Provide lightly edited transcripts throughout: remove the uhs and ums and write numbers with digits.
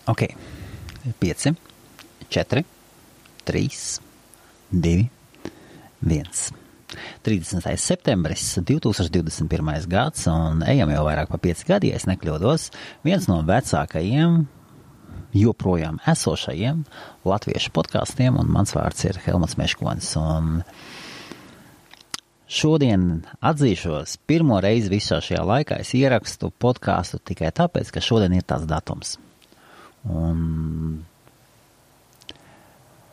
Ok, 5, 4, 3, 2, 1. 30. septembris, 2021. gads, un ejam jau vairāk pa 5 gadi, ja es nekļūdos, viens no vecākajiem, joprojām esošajiem latviešu podkastiem, un mans vārds ir Helmuts Meškonis, un šodien atzīšos, pirmo reizi visā šajā laikā es ierakstu podkāstu tikai tāpēc, ka šodien ir tāds datums. Un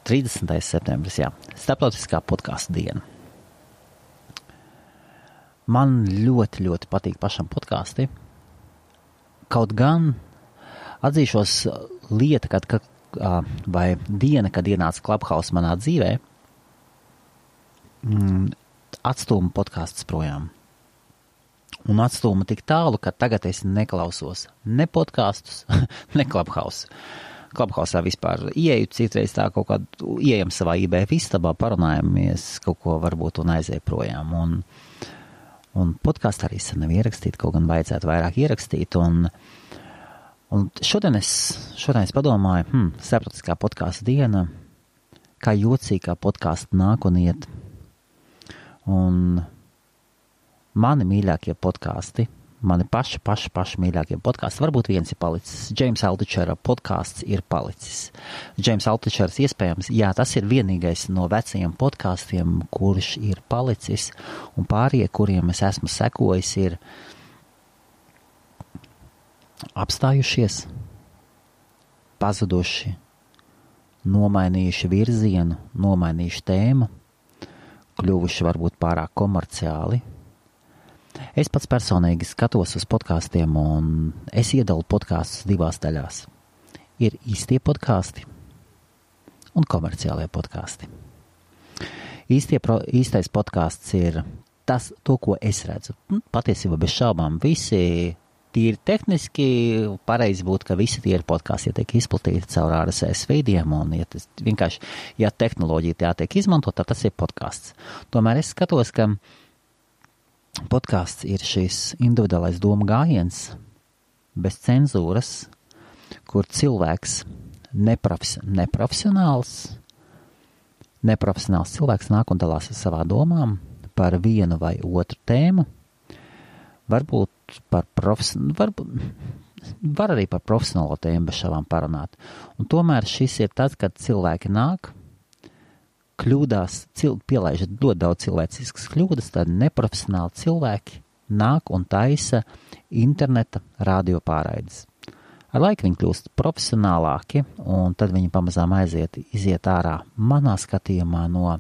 30. septembris, jā, starptautiskā podkāstu diena. Man ļoti, ļoti patīk pašam podkāsti. Kaut gan atzīšos lieta, vai diena, kad ienāca Clubhouse manā dzīvē, atstūma podkāstus projām. Un atstūma tik tālu, ka tagad es neklausos ne podkāstus, ne Clubhouse. Clubhouse'ā vispār ieeju citreiz tā kaut kādu, ieejam savā IBF istabā, parunājamies kaut ko varbūt un aiziet projām. Un podkāstu arī sen nav ierakstīt, kaut gan vajadzētu vairāk ierakstīt. Un šodien es padomāju, starptautiskā podkāstu diena, kā jocīgi kā podkāstu nāk un iet. Un mani mīļākie podkāsti, mani paši mīļākie podkāsti, varbūt viens ir palicis. James Altuchera podkāsts ir palicis. James Altuchers iespējams, jā, tas ir vienīgais no vecajiem podkāstiem, kurš ir palicis, un pārējie, kuriem es esmu sekojis, ir apstājušies, pazuduši, nomainījuši virzienu, nomainījuši tēmu, kļuvuši varbūt pārāk komerciāli. Es pats personīgi skatos uz podkāstiem, un es iedalu podkāstus divās daļās. Ir īstie podkāsti un komerciālie podkāsti. Īstais podkāsts ir to, ko es redzu. Patiesībā bez šaubām visi tīri tehniski pareizi būtu, ka visi tie ir podkāsti, ja tiek izplatīti caur RSS feediem, un ja tehnoloģija tā tiek izmantot, tad tas ir podkāsts. Tomēr es skatos, ka podkāsts ir šis individuālais doma gājiens, bez cenzūras, kur cilvēks neprofesionāls cilvēks nāk un dalās ar savām domām par vienu vai otru tēmu, varbūt var arī par profesionālo tēmu bez šāvām parunāt. Un tomēr šis ir tad, kad cilvēki nāk, kļūdās, pielaiž ļoti daudz cilvēciskas kļūdas, tad neprofesionāli cilvēki nāk un taisa interneta radio pārraides. Ar laiku viņi kļūst profesionālāki, un tad viņi pamazām iziet ārā manā skatījumā no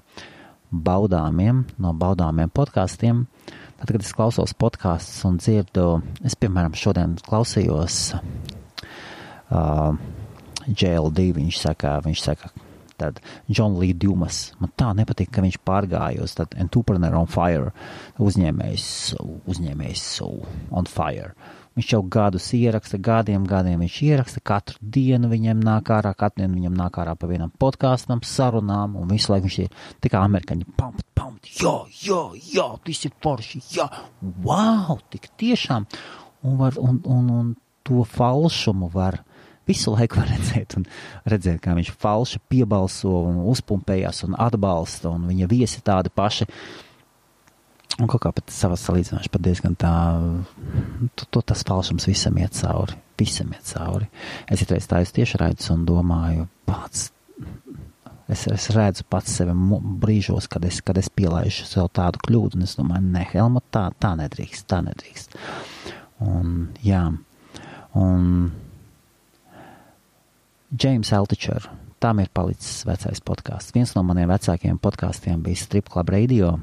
baudāmiem podkāstiem. Tad, kad es klausos podkāstus un dzirdu, es, piemēram, šodien klausījos JLD, viņš saka, tad John Lee Dumas. Man tā nepatīk, ka viņš pārgāja uz tad Entrepreneur on Fire, uzņēmējs on fire. Viņš jau gadiem viņš ieraksta, katru dienu viņam nāk ārā pa vienam podkāstam, sarunām, un visu laiku viņš ir tā kā amerikaņi, pump, jā, tas ir forši, jā, wow, tik tiešām, un to falšumu visu laiku var redzēt, kā viņš falši piebalso un uzpumpējās un atbalsta, un viņa viesi tādi paši. Un kaut kā pat savas salīdzināšu pat diezgan tā, tas falšums visam iet cauri. Es itreiz tā tieši redzu un domāju, es redzu pats sevi brīžos, kad es pielaižu sev tādu kļūdu, un es domāju, ne, Helmut, tā nedrīkst. Un, jā, James Altucher, tam ir palicis vecais podkāsts. Viens no maniem vecākajiem podkāstiem bija Strip Club Radio.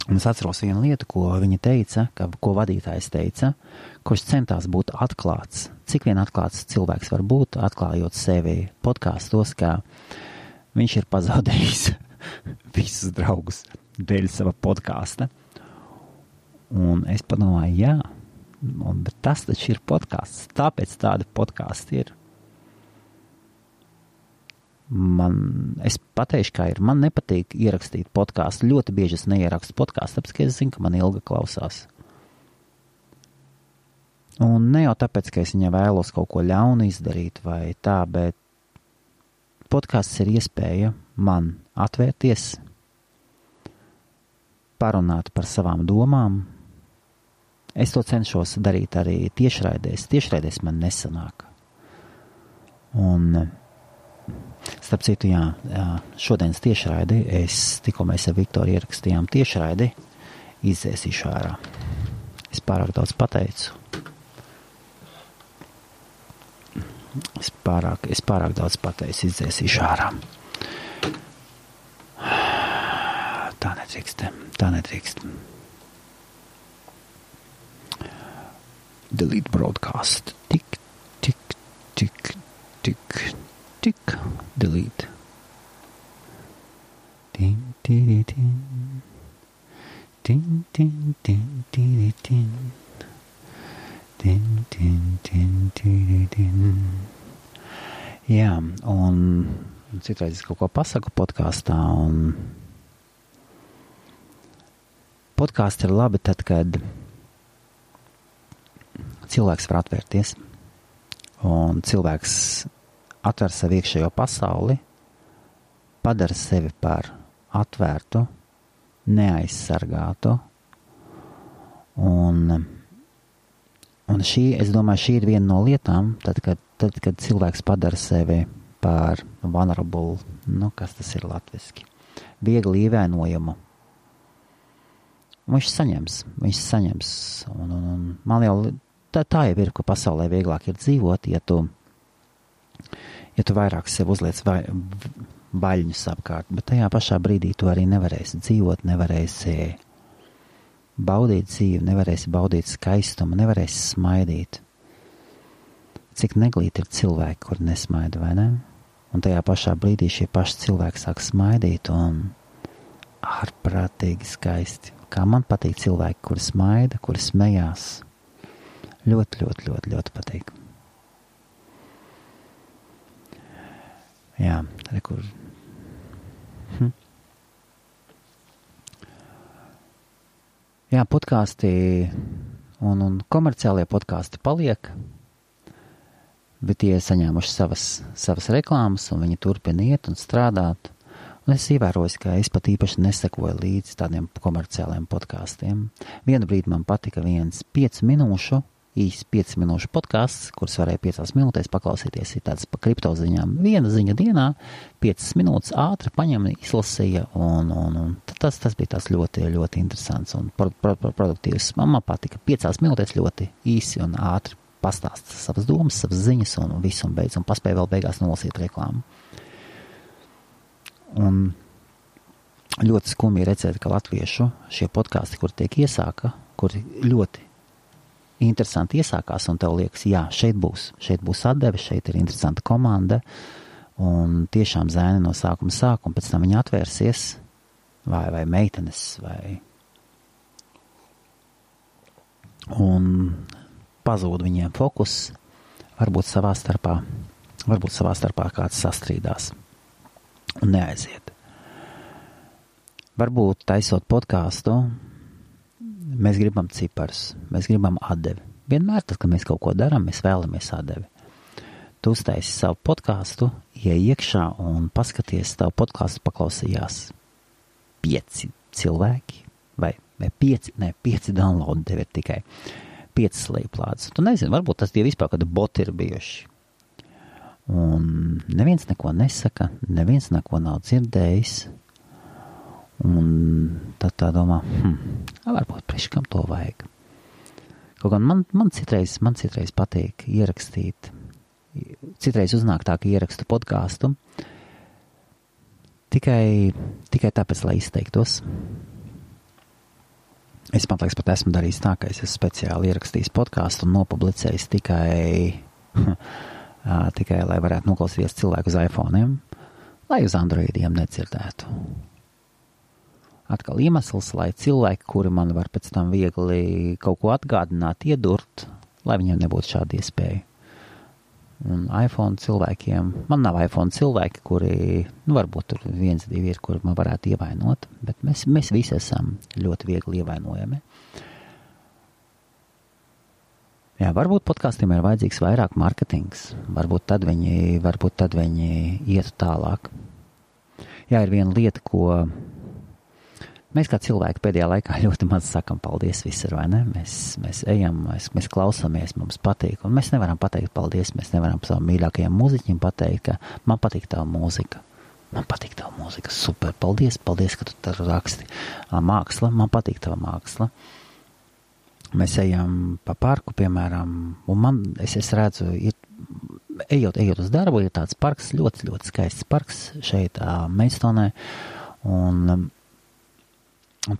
Un es atceros vienu lietu, ko viņa teica, ko vadītājs teica, kurš centās būt atklāts. Cik vien atklāts cilvēks var būt, atklājot sevi podkāstos, ka viņš ir pazaudējis visus draugus dēļ sava podkāsta. Un es padomāju, jā, bet tas taču ir podkāsts. Tāpēc tādi podkāsti ir. Es pateikšu, kā ir. Man nepatīk ierakstīt podkāstu. Ļoti bieži es neierakstu podkāstu, tāpēc, ka es zinu, ka man ilgi klausās. Un ne jau tāpēc, ka es viņai vēlos kaut ko ļaunu izdarīt vai tā, bet podkāsts ir iespēja man atvērties, parunāt par savām domām. Es to cenšos darīt arī tiešraidēs. Tiešraidēs man nesanāk. Un, starp citu, šodienas tiešraidi, tikko mēs ar Viktoru ierakstījām tiešraidi, izdzēsīšu ārā. Es pārāk daudz pateicu. Es pārāk daudz pateicu, izdzēsīšu ārā. Tā nedrīkst. Delete broadcast. Tik, delete. Jā, un citreiz es kaut ko pasaku podkāstā, un podkāsti ir labi tad, kad cilvēks var atvērties, un cilvēks atver savu iekšējo pasauli, padara sevi par atvērtu, neaizsargātu, un es domāju, šī ir viena no lietām, tad, kad cilvēks padara sevi par vulnerable, kas tas ir latviski, viegli ievainojumu. Viņš saņems, un man jau tā jau ir, ka pasaulē vieglāk ir dzīvot, ja tu vairāk sev uzliec vaļņus apkārt, bet tajā pašā brīdī tu arī nevarēsi dzīvot, nevarēsi baudīt dzīvi, nevarēsi baudīt skaistumu, nevarēsi smaidīt. Cik neglīti ir cilvēki, kur nesmaida, vai ne? Un tajā pašā brīdī šie paši cilvēki sāk smaidīt un ārprātīgi skaisti. Kā man patīk cilvēki, kuri smaida, kuri smējās. Ļoti patīk. Jā, rekur. Jā, podkāsti un komerciālie podkāsti paliek, bet tie saņēmuši savas reklāmas, un viņi turpina iet un strādāt. Un es ievēroju, ka es pat īpaši nesekoju līdz tādiem komerciāliem podkāstiem. Vienu brīdi man patika viens 5 minūšu podkāsts, kurus varēja 5 minūtēs paklausīties, ir tāds pa kriptoziņām. Viena ziņa dienā, 5 minūtes ātri paņem, izlasīja, un tas bija tās ļoti, ļoti interesants un produktīvs. Man patika 5 minūtēs ļoti īsi un ātri pastāst savas domas, savas ziņas un visu un beidz, un paspēja vēl beigās nolasīt reklāmu. Un ļoti skumji redzēt, ka latviešu šie podkāsti, kur tiek iesāka, kuri ļoti interesanti iesākās, un tev liekas, jā, šeit būs atdeve, šeit ir interesanta komanda, un tiešām zēni no sākuma sāk, un pēc tam viņi atvērsies, vai meitenes, un pazūd viņiem fokus, varbūt savā starpā kāds sastrīdās, un neaiziet. Varbūt taisot podkāstu, mēs gribam ciparus, mēs gribam atdevi. Vienmēr, tad, kad mēs kaut ko darām, mēs vēlamies atdevi. Tu uztaisi savu podkāstu, iej iekšā un paskaties, tavu podkāstu paklausījās 5 cilvēki, vai 5 download tev ir tikai 5 slēplādes. Tu nezini, varbūt tas tie vispār kādi boti ir bijuši. Un neviens neko nesaka, neviens neko nav dzirdējis. Un tad tā domā, varbūt priekškam to vajag. Kaut gan man citreiz patīk ierakstīt, citreiz uznāk tā, ka ierakstu podkāstu tikai tāpēc, lai izteiktos. Es man liekas, pat esmu darījis tā, ka es esmu speciāli ierakstījis podkāstu un nopublicējis tikai lai varētu noklausīties cilvēku uz iPhone'iem, lai uz Androidiem nedzirdētu. Atkal iemesls, lai cilvēki, kuri man var pēc tam viegli kaut ko atgādināt, iedurt, lai viņiem nebūtu šāda iespēja. Un iPhone cilvēkiem, man nav iPhone cilvēki, kuri, varbūt tur 1, 2 ir, kuri man varētu ievainot, bet mēs visi esam ļoti viegli ievainojami. Jā, varbūt podkāstiem ir vajadzīgs vairāk marketings. Varbūt tad viņi ietu tālāk. Jā, ir viena lieta, ko mēs kā cilvēki pēdējā laikā ļoti maz sakam paldies visur, vai ne? Mēs ejam, mēs klausāmies, mums patīk. Un mēs nevaram pateikt paldies, mēs nevaram savam mīļākajam mūziķim pateikt, ka man patīk tava mūzika. Man patīk tava mūzika, super, paldies, ka tu tā raksti. Māksla, man patīk tava māksla. Mēs ejam pa parku, piemēram, un es redzu, ejot uz darbu, ir tāds parks, ļoti, ļoti skaists parks šeit Maidstounē, un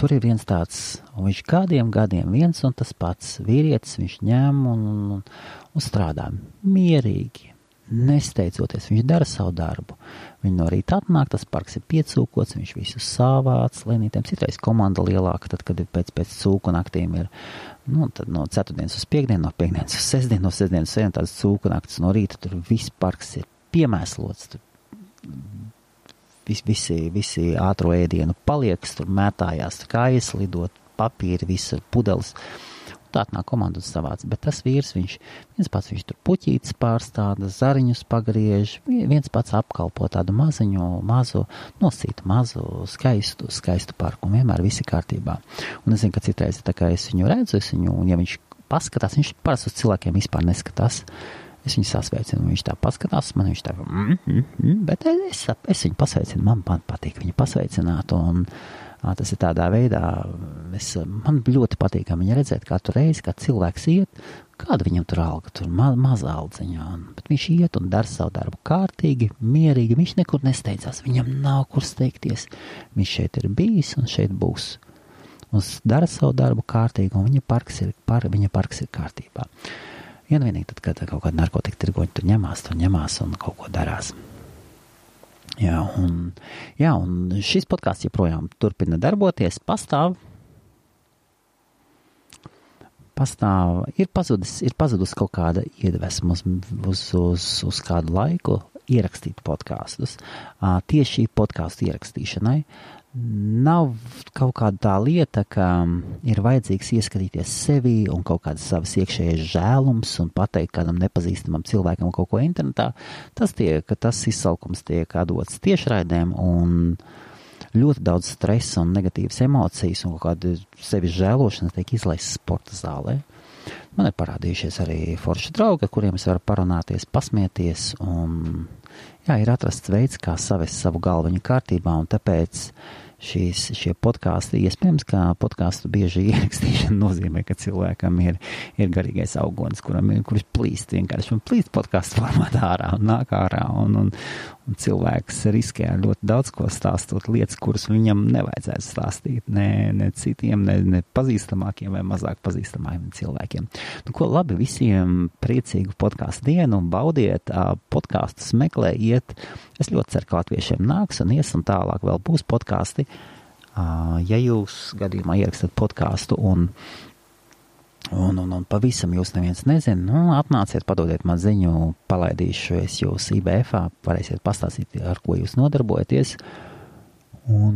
tur ir viens tāds, un viņš gadiem viens un tas pats vīrietis, viņš ņem un strādā mierīgi, nesteidzoties, viņš dara savu darbu. Viņi no rīta atnāk, tas parks ir piecūkots, viņš visu savāc lēnītēm, citreiz komanda lielāka, tad, kad ir pēc cūku naktīm ir, tad no ceturtdienas uz piekdienu, no piekdienas uz sestdienu, no sestdienas uz sestdienu, tāds cūku naktis no rīta, tur viss parks ir piemēslots, tur visi ātro ēdienu paliekas, tur mētājās kājas, lidot papīri, visa pudeles. Tā atnāk komanda un savāc, bet tas vīrs, viens pats viņš tur puķītes pārstāda, zariņus pagriež, viens pats apkalpo tādu mazu, skaistu parku, un vienmēr visi kārtībā. Un es zinu, ka citreiz, tā kā es viņu redzu, un ja viņš paskatās, viņš parasti uz cilvēkiem vispār neskatās, es viņu sasveicinu, viņš tā paskatās, man viņš tā, bet es viņu pasveicinu, man patīk viņu pasveicināt, un tas ir tādā veidā, man ļoti patīk viņa redzēt katru reizi, kā cilvēks iet, kāda viņam tur alga, tur maza aldziņā, bet viņš iet un dara savu darbu kārtīgi, mierīgi, viņš nekur nesteidzās, viņam nav kur steigties, viņš šeit ir bijis un šeit būs, un dara savu darbu kārtīgi, un viņa parks ir kārtībā. Vienīgi tad, kad kaut kāda narkotika tirgoņi tur ņemās un kaut ko darās. Jā, un šis podcasts joprojām turpina darboties, pastāv, ir pazudus kaut kāda iedvesma uz kādu laiku ierakstīt podkastus. Tieši podcastu ierakstīšanai nav kaut kāda tā lieta, ka ir vajadzīgs ieskatīties sevi un kaut kādas savas iekšējais žēlums un pateikt kādam nepazīstamam cilvēkam kaut ko internetā. Tas izsalkums tiek dots tiešraidēm un ļoti daudz stresa un negatīvas emocijas un kaut kāda sevis žēlošanas tiek izlaists sporta zālē. Man ir parādījušies arī forši draugi, kuriem es varu parunāties, pasmieties un ir atrasts veids, kā savest savu galviņu kārtībā un tāpēc šie podkāsti, iespējams, ka podkāstu bieži ierakstīšana nozīmē, ka cilvēkam ir garīgais augonis, kurš plīst vienkārši un plīst podkāstu formātā ārā un nāk ārā un cilvēks riskē ļoti daudz ko stāstot lietas, kuras viņam nevajadzētu stāstīt ne citiem, ne pazīstamākiem vai mazāk pazīstamākiem cilvēkiem. Ko labi, visiem priecīgu podkāstu dienu, baudiet, podkāstus meklējiet. Es ļoti ceru, ka latviešiem nāks un ies un tālāk vēl būs podkāsti. Ja jūs gadījumā ierakstat podkāstu un pavisam jūs neviens nezina, atnāciet, padodiet man ziņu, palaidīšu es jūs IBF-ā, varēsiet pastāstīt, ar ko jūs nodarbojaties. Un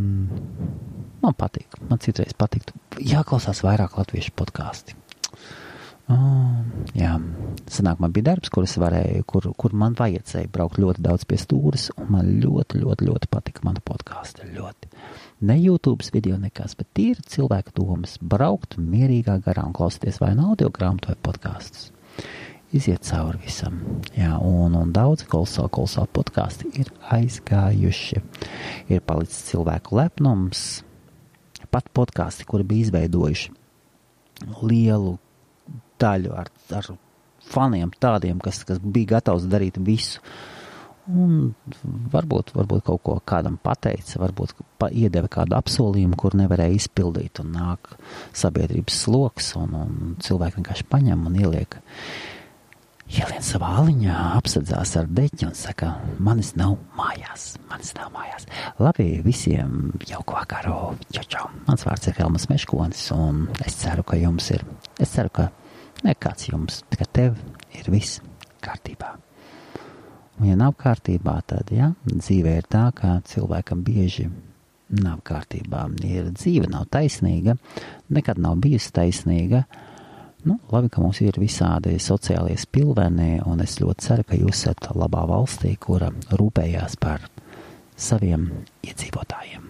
man patīk, man citreiz patiktu. Jāklausās vairāk latviešu podkāsti. Jā, sanāk, man bija darbs, kur man vajadzēja braukt ļoti daudz pie stūres, un man ļoti, ļoti, ļoti patika mana podkāsta, ļoti. Ne YouTube video nekas, bet tīri cilvēka domas, braukt mierīgā garā un klausīties vai audio grāmatu vai podkastus. Iziet cauri visam. Jā, un daudz kolosāli podkasti ir aizgājuši. Ir palicis cilvēku lepnums, pat podkasti, kuri bija izveidojuši lielu daļu ar faniem tādiem, kas bija gatavs darīt visu. Un varbūt kaut ko kādam pateica, varbūt iedeva kādu apsolījumu, kur nevarēja izpildīt, un nāk sabiedrības sloks, un cilvēki vienkārši paņem un ielien savā aliņā, apsadzās ar deķi un saka, manis nav mājās. Labi, visiem jauku vakaru, čau. Mans vārds ir Helmas Meškonis, un es ceru, ka nekāds jums, tikai tev ir viss kārtībā. Un ja nav kārtībā, tad, dzīve ir tā, ka cilvēkam bieži nav kārtībā. Dzīve nav taisnīga, nekad nav bijusi taisnīga, Labi, ka mums ir visādi sociālie spilveni, un es ļoti ceru, ka jūs esat labā valstī, kura rūpējās par saviem iedzīvotājiem.